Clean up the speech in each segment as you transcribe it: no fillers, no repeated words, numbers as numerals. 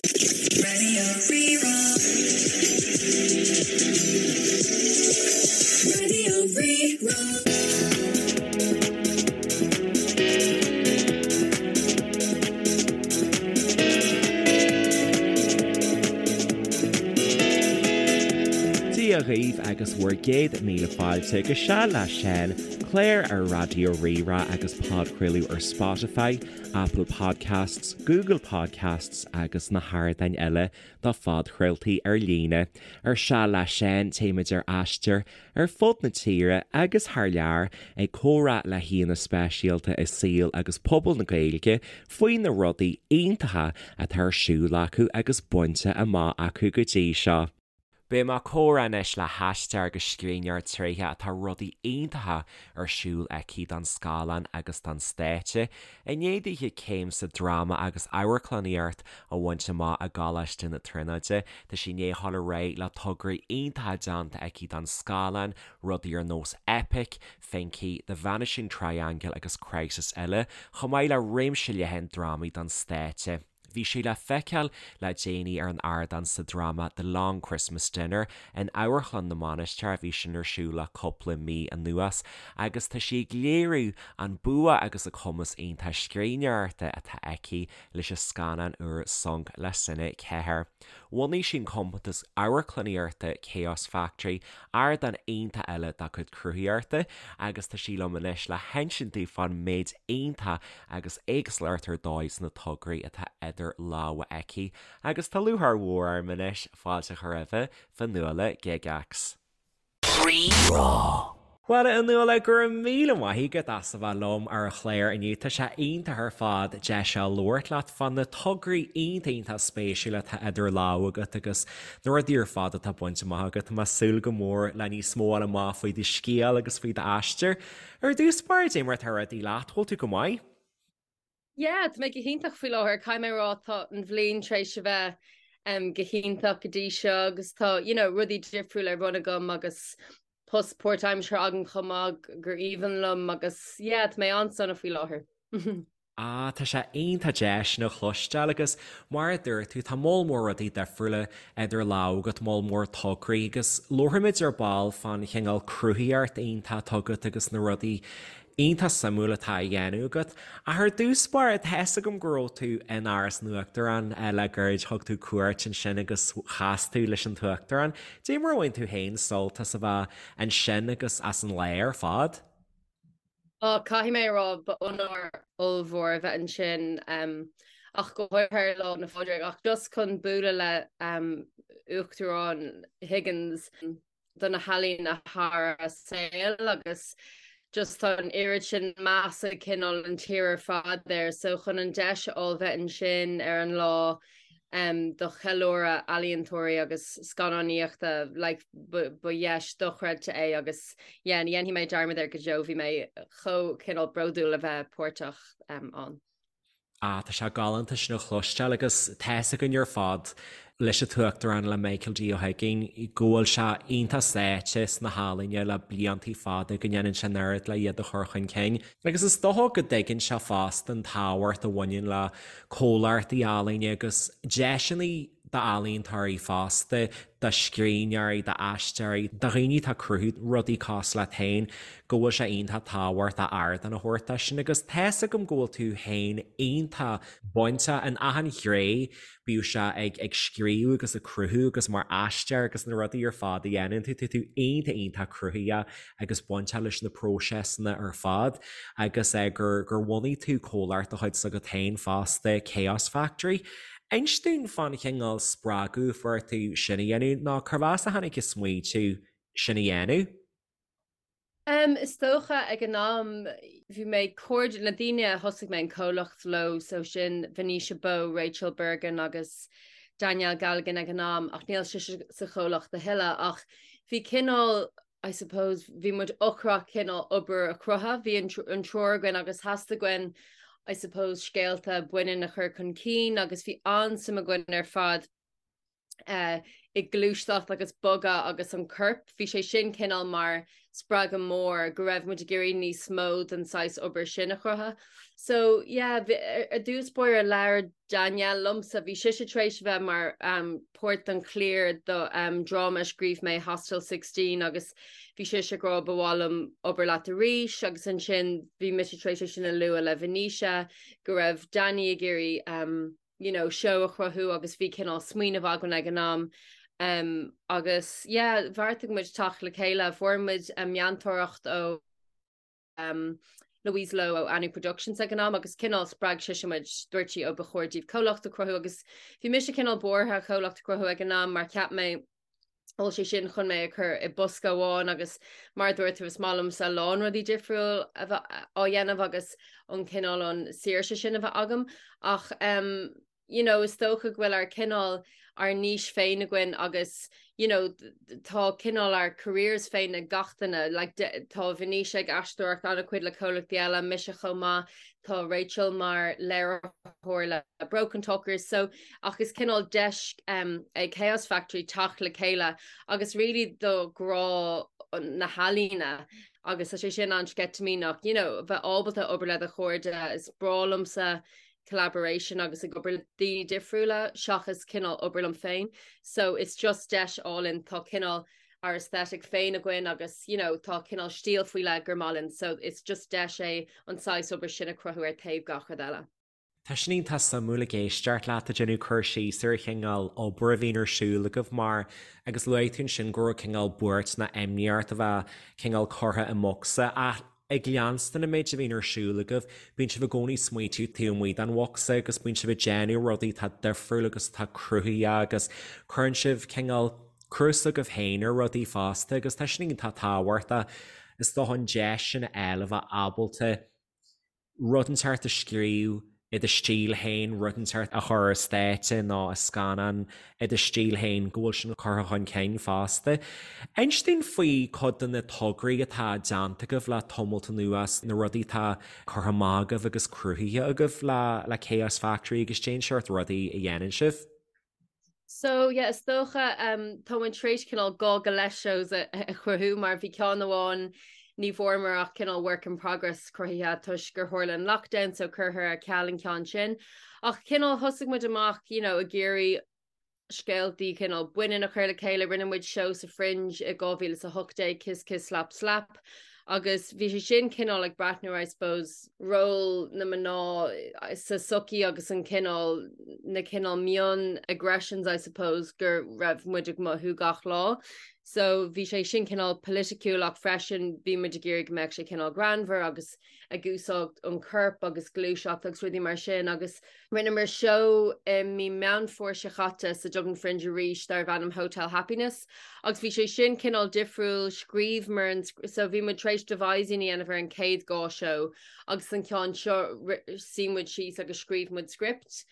Radio Rí-Rá. Radio Rí-Rá. Dia dhaoibh agus bhur gcéad míle fáilte go Seal le Seán, clár ar Raidió Rí-Rá agus podchraoladh ar Spotify, Apple Podcasts, Google Podcasts agus na hardáin eile do phodchraoltaí ar líne. Ar Seal le Seán, téimid ar aistear ar fud na tíre agus thar lear ag comhrá le haíonna speisialta i saol agus pobal na Gaeilge faoi na rudaí iontacha atá ar siúl acu agus bainte amach acu go dtí seo. Beidh mé ag comhrá anois le haisteoir agus scríbhneoir tréitheach atá rudaí iontacha ar siúl aici don scáileán agus don stáitse. I ndiaidh dithe céim sa dráma agus amharclannaíocht a bhaint amach i gColáiste na Tríonóide, tá sí i ndiaidh a dhul ar aghaidh le tograí iontacha déanta aici don scáileán, rudaí ar nós Eipic, Finky, The Vanishing Triangle agus Crisis eile, chomh maith le réimse leathan drámaí don stáitse. Bhí sí le feiceáil le déanaí ar an ardán sa dráma The Long Christmas Dinner in Amharclann na Mainistreach, bhí sin ar siúl le cúpla mí anuas, agus tá sí ag léiriú an bua agus a cumas iontach scríbhneoireachta atá aici leis an scannán úr Sonc le Cine 4. Bhunaigh sí an compántas amharclannaíochta Chaos Factory, ardán iontach eile dá cuid cruthaitheachta, agus tá sí liom anois le hinsint dúinn fán méid iontach agus éagsúlacht ar dóigh sna tograí atá idir lámha aici agus tá lúcháir mhór orm anois fáilte a chur roimhe, Fionnuala Gygax. Rí-Rá. Bhuel, a Fhionnuala, go raibh míle maith agat as a bheith liom ar an chlár inniu. Tá sé iontach ar fad deis a labhairt leat fá na tograí iontach iontach spéisiúla atá idir lámha agat agus na rudaí ar fad atá bainte amach agat. Tá mé ag súil go mór le níos mó a fháil amach faoi do scéal agus faoi d'aistear. Ar dtús báire, cad é mar atá rudaí leat, bhfuil tú go maith? Yeah, tá mé go hiontach faoi láthair. Caithfidh mé a rá tá an bhliain tar éis a bheith um, go hiontach go dtí seo agus tá you know, rudaí difriúla ar bun agam agus post páirtaimseartha agam chomh maith gur aoibhinn liom agus yeah, tá mé an-sona faoi láthair. Ah, tá sé iontach deas sin a chloisteáil agus mar a dúirt tú, tá moll mór rudaí difriúla idir lámha agat, moll mór tograí agus labharfaimid ar ball fán chineál cruthaitheacht iontach atá agat agus na rudaí iontach suimiúil atá á dhéanamh agat. Ach ar dtús báire, tá fhios agam go raibh tú in Áras an Uachtaráin le gairid, thug tú cuairt ansin agus chas tú leis an tUachtarán. Cad é mar a bhain tú féin sult as a bheith ansin agus as an lá ar fad? Á, caithfidh mé a rá, ba onóir ollmhór a bheith ansin, ach go háirithe ar Lá 'le Pádraig, ach just chun bualadh le Uachtarán Higgins do na healaíona thar a saol agus just tá an oiread sin meas ag cineál an tír ar fad air, so chun an deis a fháil bheith ansin ar an lá do cheiliúradh ealaíontóirí agus scannánaíochta, like, ba dheis dochreidte é agus yeah, ní dhéanfaidh mé dearmad air go deo, bhí mé chomh cineál bródúil a bheith páirteach ann. Ah, tá sé galánta sin a chloisteáil agus tá fhios againn ar fad leis an tUachtarán, le Michael D. Ó hUiginn, go bhfuil sé iontach sáite sna healaíona le bliantaí fada, go ndéanann sé an oiread le iad a chur chun cinn. Agus is dócha go dtuigeann sé fosta an tábhacht a bhaineann le comhlachtaí ealaíne agus deiseanna d'ealaíontóirí fosta, do scríbhneoirí, d'aisteoirí, do dhaoine atá ag cruthú rudaí cosúil leat féin, go bhfuil sé iontach tábhachtach ardán a thabhairt dó sin. Agus tá fhios agam go bhfuil tú féin iontach bainteach in achan ghné bíodh sé ag ag scríobh agus ag cruthú agus mar aisteoir agus na rudaí ar fad a dhéanann tú, tá tú iontach iontach cruthaitheach agus bainteach leis na próiseasanna ar fad agus eh gur gur bhunaigh tú comhlacht de chuid s'agat féin fosta, Chaos Factory. Inis dúinn fán chineál spreagadh a fuair tú sin a dhéanamh nó cérbh as a tháinig an smaoitiú sin a dhéanamh? Em, is dócha ag an am bhí mé cairde na daoine a thosaigh mé an comhlacht leo so sin Venetia Bowe, Rachel Bergin agus Danielle Galligan ag an am ach níl sise sa chomhlacht a thuilleadh ach bhí cineál I suppose bhí muid ocrach cineál obair a chruthú, bhí an an triúr againn agus theastaigh uainn I suppose scéalta baineann a chur chun cinn agus bhí an-suim againn ar fad i ngluaiseacht agus bogadh agus an corp, bhí sé sin cineál mar. spreagadh mór go raibh muid ag iarraidh níos mó den saghas obair sin a chruthú. So yeah, ar dtús báire labhair Danielle liomsa, bhí sise tar éis a bheith mar um, páirt den chliar do um, dráma a scríobh mé Hostel 16 agus bhí sise ag rá ba mhaith liom obair leat arís agus ansin bhí mise tar éis é sin a lua le Venetia go raibh Danny ag iarraidh um, you know, seó a chruthú agus bhí cineál smaoineamh againn ag an am um, agus yeah, bheartaigh muid teacht le chéile, fuair muid um, meantóireacht ó um, Louise Lowe ó Anu Productions ag an am agus cineál spreag sise muid dúirt sí ó ba chóir daoibh comhlacht a chruthú agus bhí mise cineál buartha comhlacht a chruthú ag an am mar cheap mé bhfuil sé sin chun mé a chur i bosca amháin agus mar a dúirt tú is maith liomsa a lán rudaí difriúil a bheith á dhéanamh agus an cineál an saoirse sin a bheith agam ach um, you know, is dócha go bhfuil ár cineál ár niche féin againn agus you know, tá cineál ár careers féin ag gach duine, like, tá Venetia ag aisteoireacht an-chuid le comhlachtaí eile, mise chomh maith, tá Rachel mar léiritheoir le Brokentalkers, so ach is cineál deis um, é Chaos Factory teacht le chéile agus really do ghrá na healaíne agus tá sé sin an-sceitimíneach, you know, bheith ábalta obair le do chairde, is breá liomsa collaboration agus ag obair le daoine difriúla seachas cineál obair liom féin. So it's just deis álainn tá cineál ár aesthetic féin againn agus you know, tá cineál stíl faoi leith gur maith linn so it's just deis é an saghas obair sin a chruthú ar taobh gach rud eile. Tá sin iontach suimiúil ag éisteacht leat ag déanamh cur síos ar an chineál obair a bhíonn ar siúl agaibh mar agus luaigh tú ansin go raibh cineál buairt nó imní ort a bheith cineál curtha i mbocsa ach ag leanstan an méid a bhíonn ar siúl agaibh, bíonn sibh i gcónaí ag smaoitiú taobh amuigh den bhocsa agus bíonn sibh ag déanamh rudaí atá difriúil agus atá cruthaitheach agus cuireann sibh cineál cruth s'agaibh féin ar rudaí fosta agus tá sin iontach tábhachtach. Is dócha an deis sin a fháil a bheith ábalta rud inteacht a scríobh i do stíl féin, rud inteacht a chur ar stáitse nó i scannán i do stíl féin, go bhfuil sin curtha chun cinn fosta. Inis dúinn faoi cuid de na tograí atá déanta agaibh le tamalt anuas, na rudaí atá curtha amach agaibh agus cruthaithe agaibh le Chaos Factory agus cén seort rudaí a dhéanann sibh. So yeah, is dócha um, tá muid tar éis cineál dhá go leith shows a, a chruthú mar bhí ceann amháin ní bhfuaireamar ach cineál work in progress cruthaithe toisc gur tharla an lockdown so curtha ar ceal an ceann sin. Ach cineál thosaigh muid amach you know, ag iarraidh scéaltaí cineál baineann a chur le chéile, rinne muid seó sa Fringe i 2018 Kiss Kiss Slap Slap agus bhí sé sin cineál ag breathnú I suppose ról na mná sa sochaí agus an cineál na cineál mion aggressions I suppose go raibh muid ag mothú gach lá. So bhí sé sin cineál politiciúil ach freisin bhí muid ag iarraidh go mbeadh sé cineál greannmhar agus ag úsáid an corp agus gluaiseacht agus rudaí mar sin agus rinneamar seó i mí Meán Fómhair seo chaite sa Dublin Fringe arís darbh ainm Hotel Happiness agus bhí sé sin cineál difriúil, scríobhamar an so bhí muid tar éis devising a dhéanamh ar an chéad dhá seó agus an ceann seo shuigh muid síos agus scríobh muid script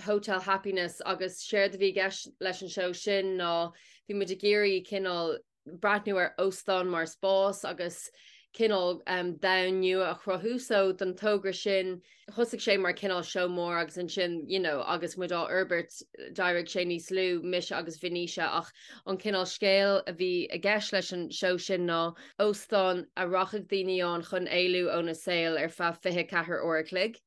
Hotel Happiness agus séard a bhí i gceist leis an seó sin ná bhí muid ag iarraidh cineál breathnú ar óstán mar spás agus cineál domhan nua a chruthú. So don togra sin thosaigh sé mar cineál seó mór agus ansin you know agus muid á fhorbairt d'éirigh sé níos lú, mise agus Venetia ach an cineál scéal a bhí i gceist leis an seó sin ná óstán a rachadh daoine ann chun éalú óna saol ar feadh 24 uair a chloig.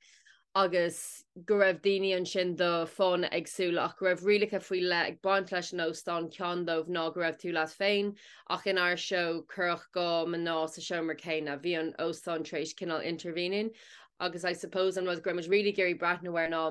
agus go raibh daoine ansin do fáthanna éagsúla ach go raibh rialacha faoi leith ag baint leis an óstán, ceann dóibh ná go raibh tú leat féin ach inár seó cuireadh 2 mná sa seomra céanna, bhí an óstán tar éis cineál intervening agus I suppose an rud go raibh muid really ag iarraidh breathnú air ná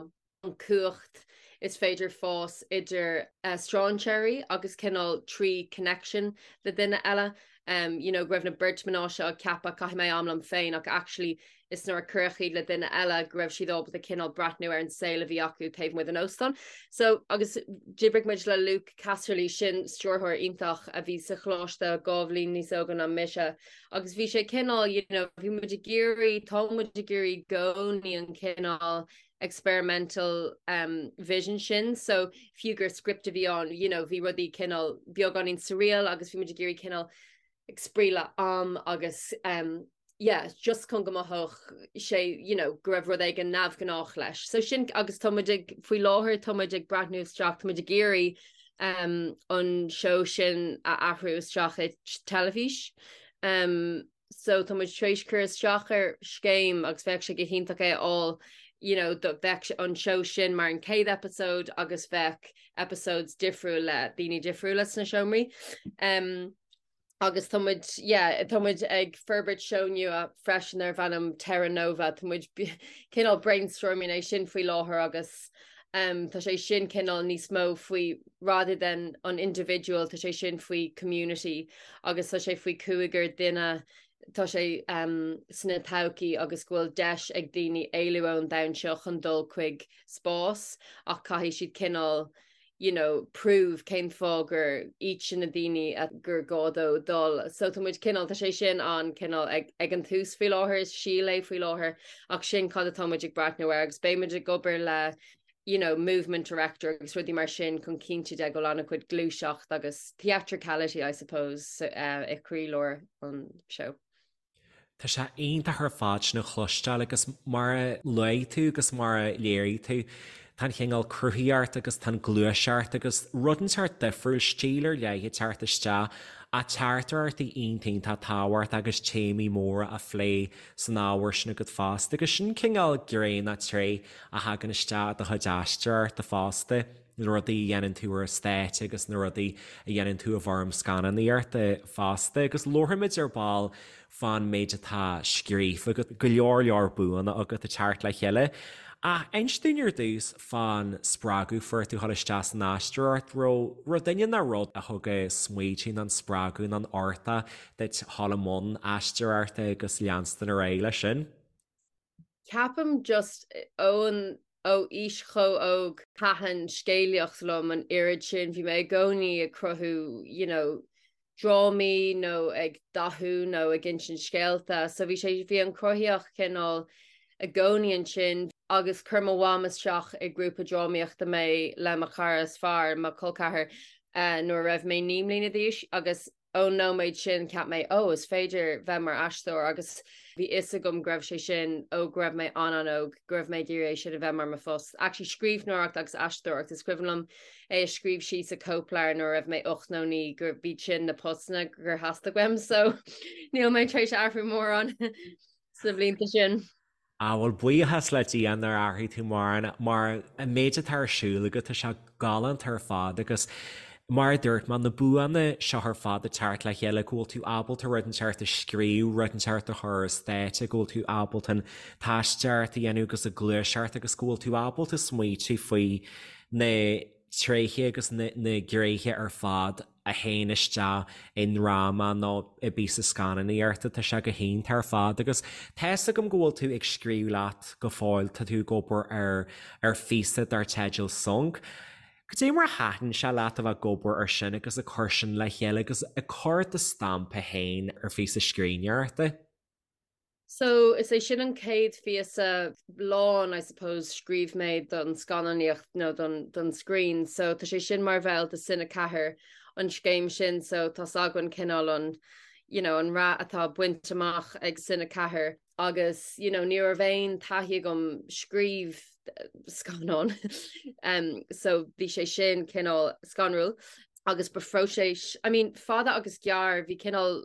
an cumhacht is féidir fás idir strainséirí agus cineál trí connection le duine eile. Um, you know, go raibh na beirt mná seo ag ceapadh caithfidh mé am liom féin ach actually is nuair a cuireadh iad le duine eile go raibh siad ábalta cineál breathnú ar an saol a bhí acu taobh amuigh den óstán. So, agus d'oibrigh muid le Luke Casserly, sin stiúrthóir iontach a bhí sa choláiste dhá bhliain níos óige ná mise, agus bhí sé cineál, you know, bhí muid ag iarraidh, tá muid ag iarraidh i gcónaí an cineál experimental um, vision sin, so fiú gur script a bhí ann, you know, bhí rudaí cineál beagáinín surreal agus bhí muid ag iarraidh cineál ag spraoi le am agus um, yeah, just chun go mothódh sé you know, go raibh rud éigin neamhghnách leis. So sin agus tá muid ag faoi láthair tá muid ag breathnú isteach, tá muid ag iarraidh um, an seó sin a athrú isteach i teilifís. Um, so tá muid tar éis cur isteach ar scéim agus bheadh sé go hiontach é a fháil you know, do bheadh an seó sin mar an chéad episode agus bheadh episodes difriúil le daoine difriúla sna seomraí. Um, agus tá muid, yeah, tá muid ag forbairt seó nua freisin darb ainm Terra Nova, tá muid cineál brainstorming é sin faoi láthair agus um, tá sé sin cineál níos mó faoi rather than an individual, tá sé sin faoi community agus tá sé faoi cúigear duine tá sé um, sna todhchaí agus go bhfuil deis ag daoine éalú ón domhan seo chun dul chuig spás ach caithfidh siad cineál you know, prove cén fáth gur iad sin na daoine a gur gá dó dul. So tá muid cineál, tá sé sin an cineál ag, ag an tús faoi láthair, is síol é faoi láthair, ach sin cad atá muid ag breathnú air agus beidh muid ag obair le you know, movement director agus rudaí mar sin chun cinntiú de go bhfuil an-chuid gluaiseacht agus theatricality, I suppose, uh, i gcroílár an seó. Tá sé iontach ar fad sin a chloisteáil agus mar a luaigh tú agus mar a léirigh tú, tá an chineál cruthaíocht agus tá an gluaiseacht agus rud inteacht difriúil, stíl ar leith ag teacht isteach ach teachtaireachtaí iontach iontach tábhachtach agus téamaí móra á phlé san ábhar sin agat fosta agus sin cineál gné nó tréith a thagann isteach i do chuid aisteoireachta fosta. na rudaí a dhéanann tú ar an stáitse agus na rudaí a dhéanann tú i bhfoirm scannánaíochta fosta. Agus labharfaimid ar ball fán méid atá scríofa agat, go leor leor buanna agat ag teacht le chéile. Ach inis dúinn ar dtús fán spreagadh fuair tú dhul isteach san aisteoireacht. Raibh raibh duine nó rud a thug an smaoitiú nó an spreagadh nó an uchtach duit dhul i mbun aisteoireachta agus leanstan ar aghaidh leis sin? Ceapaim just ón ó aois chomh óg thaitin scéalaíocht liom an oiread sin, bhí mé i gcónaí ag cruthú you know drámaí nó ag dathú nó ag insint scéalta so bhí sé bhí an chruthaíocht cineál i gcónaí ansin agus chuir mo mham isteach i grúpa drámaíochta mé le mo chara is fearr, mo chol ceathar, uh, nuair a raibh mé 9 mbliana d'aois agus Ón nóiméad sin cheap mé, oh, is féidir bheith mar aisteoir agus bhí fhios agam go raibh sé sin ó go raibh mé an-an-óg, go raibh mé ag iarraidh é sin a bheith mar mo phost. Actually scríbhneoireacht agus aisteoireacht, is cuimhin liom é a scríobh síos i cóipleabhar nuair a raibh mé 8 nó 9 gur b'iad sin na postanna gur theastaigh uaim so níl mé tar éis athrú mórán sna blianta sin. Á, bhuel, buíochas le Dia nár athraigh tú mórán, mar an méid atá ar siúl agat, tá sé galánta ar fad agus mar a dúirt mé, na buanna seo ar fad ag teacht le chéile, go bhfuil tú ábalta rud inteacht a scríobh, rud inteacht a chur ar stáitse, go bhfuil tú ábalta an t-aisteoireacht a dhéanamh agus an ghluaiseacht agus go bhfuil tú ábalta smaoitiú faoi na tréithe agus na gnéithe ar fad a théann isteach i ndráma nó i bpíosa scannánaíochta, tá sé go hiontach ar fad agus tá fhios agam go bhfuil tú ag scríobh leat go fóill, tá tú ag obair ar ar phíosa dar teideal Sonc. Cad é mar a thaitin sé leat a bheith ag obair ar sin agus ag cur sin le chéile agus ag cur do stampa féin ar phíosa scríbhneoireachta? So, is é sin an chéad phíosa lán, I suppose, scríobh mé don scannánaíocht nó don, don screen. So, tá sé sin mar bhall de Cine 4, an scéim sin, so tá's againn cineál an, you know, an rath atá bainte amach ag Cine 4 agus, you know, ní raibh aon taithí agam scríobh scannán. um, so bhí sé sin cineál scanrúil agus ba phróiseas, I mean, fada agus gearr, bhí cineál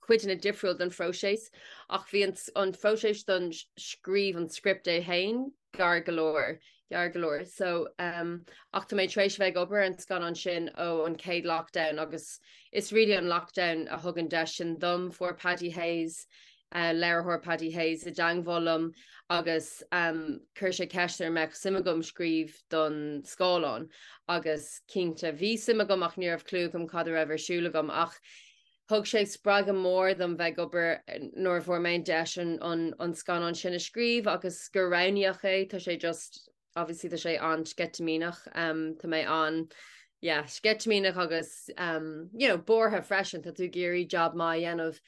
cuideanna difriúil den phróiseas ach bhí an phróiseas don scríobh an script é féin gearr go leor, gearr go leor. So um, ach tá mé tar éis bheith ag obair ar an scannán sin ó an chéad lockdown agus is really an lockdown a thug an deis sin dom. Fuair Paddy Hayes, uh, léiritheoir Paddy Hayes i dteangmháil liom agus um, chuir sé ceist ar mbeadh suim agam scríobh don scáileán agus cinnte bhí suim agam ach ní raibh clue agam cad a raibh ar siúl agam ach Thug sé spreagadh mór dom bheith ag obair nuair a fuair mé an deis an scannán sin a scríobh agus gur roghnaíodh é. Tá sé just, obviously tá sé an-sceitimíneach. Tá mé an, yeah, sceitimíneach agus you know, buartha freisin, tá tú ag iarraidh job maith a dhéanamh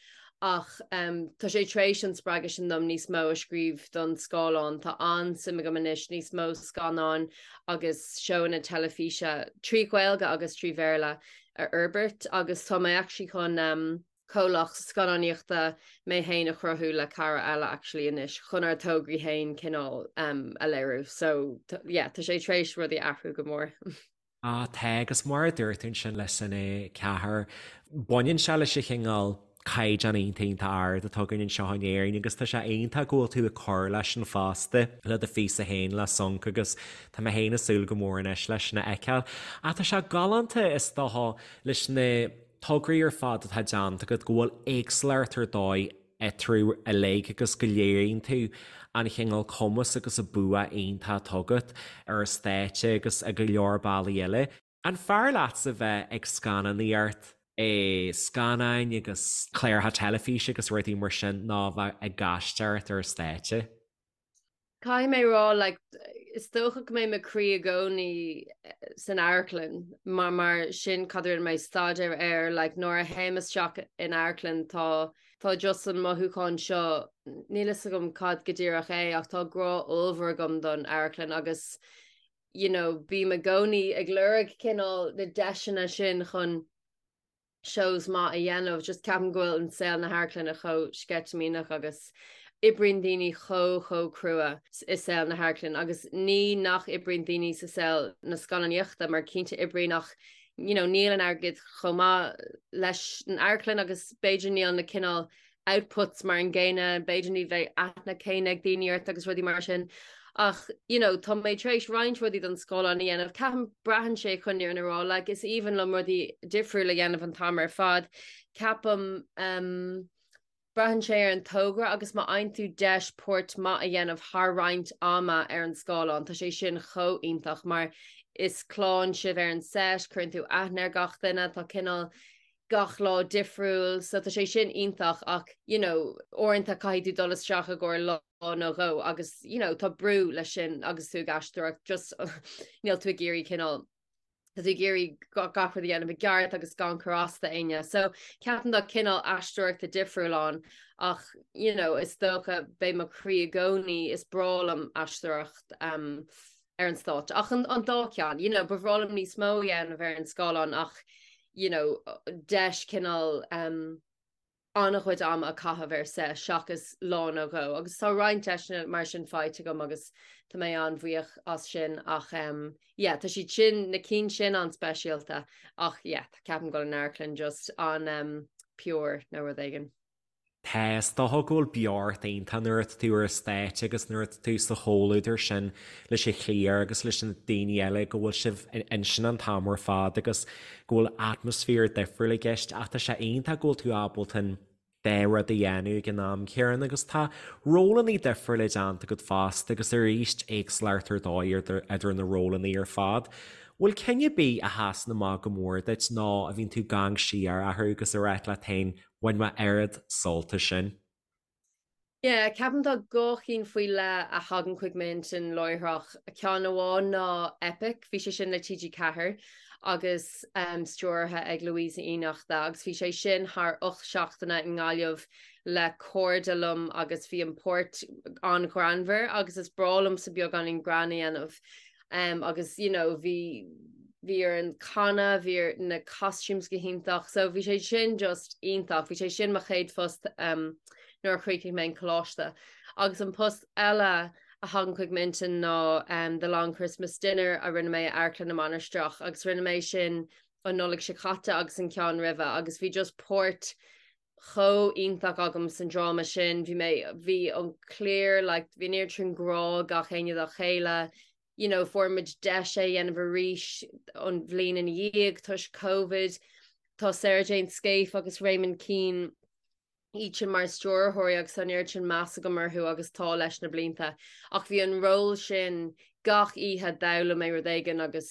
ach tá sé tar éis an spreagadh sin dom níos mó a scríobh don scáileán. Tá an-suim agam anois níos mó scannáin agus seóanna teilifíse trí Ghaeilge agus trí Bhéarla a fhorbairt agus tá mé actually chun um, comhlacht scannánaíochta mé féin a chruthú le cara eile actually anois chun ár dtograí féin cineál um, a léiriú. So yeah, tá sé tar éis rudaí athrú go mór. Ah, tá agus mar a dúirt tú ansin le Cine 4, baineann sé leis an chineál. caighdeán iontach iontach ard atá againn anseo in Éirinn agus tá sé iontach go bhfuil tú ag cur leis sin fosta le do phíosa féin le Sonc agus tá mé féin ag súil go mór anois leis sin a fheiceáil. Ach tá sé galánta is dócha leis na tograí ar fad atá déanta agat go bhfuil éagsúlacht ar dóigh eatarthu uilig agus go léiríonn tú an chineál cumas agus an bua iontach atá agat ar an stáitse agus i go leor bealaí eile. An fearr leatsa bheith ag scannánaíocht i scannáin agus cláracha teilifíse agus rudaí mar sin ná bheith ag aisteoireacht ar an stáitse? Caithfidh mé rá, like, is dócha go mbeidh mo chroí i gcónaí san amharclann mar mar sin cad a rinne mé staidéar air, like, nuair a théim isteach in amharclann tá tá just an mothúchán seo, níl fhios agam cad go díreach é ach tá grá ollmhór agam don amharclann agus you know, bím i gcónaí ag lorg cineál na deiseanna sin chun shows maith a dhéanamh, just ceapaim go bhfuil an saol na hamharclainne chomh sceitimíneach agus oibríonn daoine chomh chomh crua i saol na hamharclainne agus ní nach oibríonn daoine sa saol na scannánaíochta mar cinnte oibríonn ach you know níl an airgead chomh maith leis an amharclann agus b'fhéidir níl na cineál outputs mar an gcéanna, b'fhéidir ní bheidh aithne céanna ag daoine ort agus rudaí mar sin. Ach, you know, tá mé tar éis roinnt rudaí don scáileán a dhéanamh, ceapaim braitheann sé chun an fhírinne a rá, like, is aoibhinn liom rudaí difriúla a dhéanamh an t-am ar fad. Ceapaim, um, braitheann sé ar an togra agus má fhaigheann tú deis páirt maith a dhéanamh thar roinnt ama ar an scáileán, tá sé sin chomh iontach mar is clann sibh ar an set, cuireann tú aithne ar gach duine, tá cineál gach lá difriúil so tá sé sin iontach ach you know uaireanta caithfidh tú dul isteach i gcomhair lá nó dhó agus you know tá brú leis sin agus tú ag aisteoireacht just níl tú ag iarraidh cineál tá tú ag iarraidh gach rud a dhéanamh i gceart agus gan cur as do éinne. So ceapaim tá cineál aisteoireachta difriúil ann ach you know is dócha beidh mo chroí i gcónaí is breá liom aisteoireacht um, ar an stáitse. Ach an an dá cheann, you know, ba bhreá liom níos mó a dhéanamh ar an scáileán ach, you know, deis cineál um, an-chuid ama a chaitheamh ar set seachas lá nó dhó. Agus tá roinnt deiseanna mar sin faighte agam agus tá mé an-bhuíoch as sin ach um, yeah, tá siad sin, na cinn sin an-speisialta ach yeah, ceapaim go bhfuil an amharclann just an um, pure nó rud éigin. Tá, is dócha go bhfuil beocht iontach nuair atá tú ar an stáitse agus nuair atá tú sa chomhluadar sin leis an chliar agus leis na daoine eile go bhfuil sibh ansin an t-am ar fad agus go bhfuil atmaisféar difriúil i gceist ach tá sé iontach go bhfuil tú ábalta an dá rud a dhéanamh ag an am céanna agus tá rólanna difriúla déanta agat fosta agus arís éagsúlacht ar dóigh idir na rólanna ar fad. Bhfuil ceann ar bith a sheasann amach go mór duit nó a bhíonn tú ag amharc siar orthu agus ag ráit leat féin Bhain mé oiread sult as sin. Yeah, ceapaim tá dhá chinn faoi leith a thagann chuig m'intinn láithreach. Ceann amháin ná Eipic, bhí sé sin le TG4 agus um, stiúrtha ag Louisa Uí Fhiannachta agus bhí sé sin thar 8 seachtaine i nGaillimh le cairde liom agus bhí an páirt an-ghreannmhar agus is breá liomsa beagáinín greann a dhéanamh. Um, agus you know, bhí bhí orainn canadh, bhí ar na costumes go hiontach, so bhí sé sin just iontach, bhí sé sin mo chéad phost um, nuair a chríochnaigh mé an coláiste. Agus an post eile a thagann chuig m'intinn ná um, The Long Christmas Dinner a rinne mé i Amharclann na Mainistreach agus rinne mé sin an Nollaig seo caite agus an ceann roimhe agus bhí just páirt chomh iontach agam san dráma sin, bhí mé, bhí an cliar like bhí an oiread sin grá gach éinne dá chéile, you know fuair muid deis é a dhéanamh arís an bhliain ina dhiaidh toisc Covid, tá Sarah Jane Scaife agus Raymond Keane iad sin mar stiúrthóirí agus tá an oiread sin meas agam orthu agus tá leis na blianta ach bhí an ról sin gach oíche d'fhoghlaim mé rud éigin agus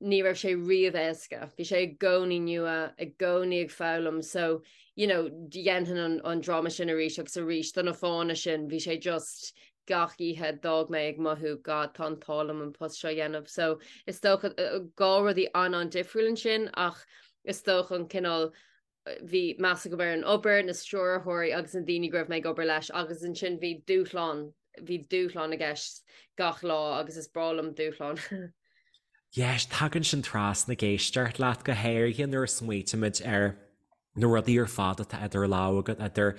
ní raibh sé riamh éasca. Bhí sé i gcónaí nua, i gcónaí ag foghlaim so you know dhéanfainn an, an dráma sin arís agus arís do na fáthanna sin bhí sé just gach oíche d'fhág mé ag mothú God tá an t-ádh liom an post seo a dhéanamh. So is dócha dhá rudaí an-an-difriúil ansin ach is dócha an cineál bhí meas agam ar an obair, na stiúrthóirí agus na daoine go raibh mé ag obair leis agus ansin bhí dúshlán, bhí dúshlán i gceist gach lá agus is breá liom dúshlán. Yes, tagann sin trasna ag éisteacht leat go háirithe nuair a smaoitímid ar na rudaí ar fad atá idir lámha agat, idir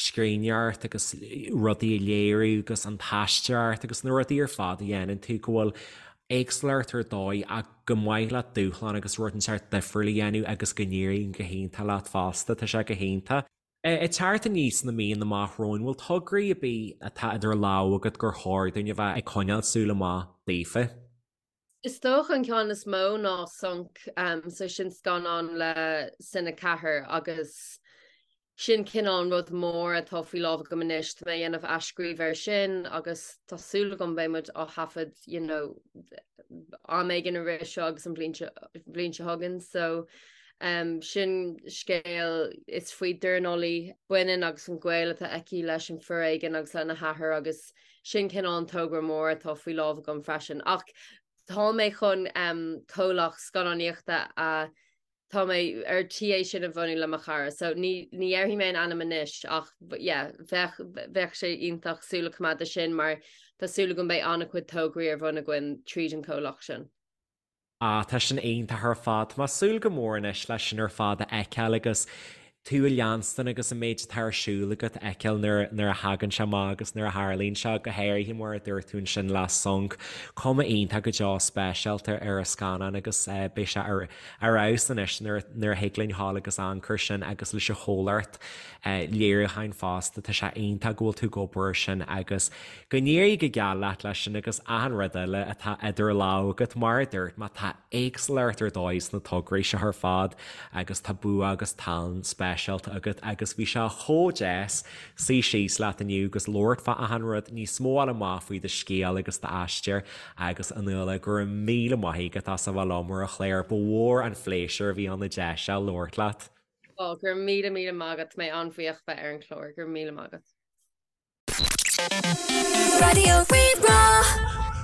scríbhneoireacht agus rudaí a léiriú agus an t-aisteoireacht agus na rudaí ar fad a dhéanann tú go bhfuil éagsúlacht ar dóigh ach gur maith leat dúshlán agus rud inteacht difriúil a dhéanamh agus go n-éiríonn go hiontach leat fosta, tá sé go hiontach. Ag teacht aníos sna míonna amach romhainn, bhfuil tograí ar bith atá idir lámha agat gur chóir dúinn a bheith ag coinneáil súil amach daofa? Is dócha an ceann is mó ná Sonc, so sin scannán le Cine 4 agus sin cineál an rud mór atá faoi lámh agam anois. Tá mé ag déanamh athscríobh air sin agus tá súil agam beidh muid á thaifead you know, am éigin i rith seo agus an bhliain seo chugainn. So um, sin scéal is faoi dornálaí baineann agus an gaol atá aici leis an foréigean agus lena hathair agus Sin cineál an togra mór atá faoi lámh agam freisin. Ach tá mé chun comhlacht scannánaíochta a tá mé ar tí é sin a bhunú le mo chara. So ní ní dhéarfaidh mé an ainm anois ach yeah, bheadh bheadh sé iontach súil a choimeád air sin mar tá súil agam beidh an-chuid tograí ar bun againn tríd an comhlacht sin. Ah, tá sin iontach ar fad. Tá mé ag súil go mór anois leis sin ar fad a fheiceáil agus tú a leanstan agus an méid atá ar siúl agat a fheiceáil nuair nuair a thagann sé amach agus nuair a tharlaíonn sé, go háirithe mar a dúirt tú ansin le Sonc. Cuma iontach go deo speisialta ar an scannán agus beidh sé ar ar fheabhas anois nuair nuair a thig linn ghabháil agus amharc air sin agus leis an chomhlacht léiriúcháin fosta. Tá sé iontach go bhfuil tú ag obair air sin agus Go n-éirí go geal leat leis sin agus achan rud eile atá idir lámha agat, mar a dúirt mé, tá éagsúlacht ar dóigh sna tograí seo ar fad agus tá bua agus tallann speisialta agat agus bhí sé chomh deas suí síos leat inniu agus labhairt fá achan rud, níos mó a fháil amach faoi do scéal agus d'aistear agus a Nuala, go raibh míle maith agat as a bheith liom ar an chlár, ba mhór an phléisiúr a bhí ann an deis seo labhairt leat. Ó, go raibh míle míle maith agat, tá mé an-bhuíoch bheith ar an chlár, go raibh míle maith agat. Raidió Rí-Rá.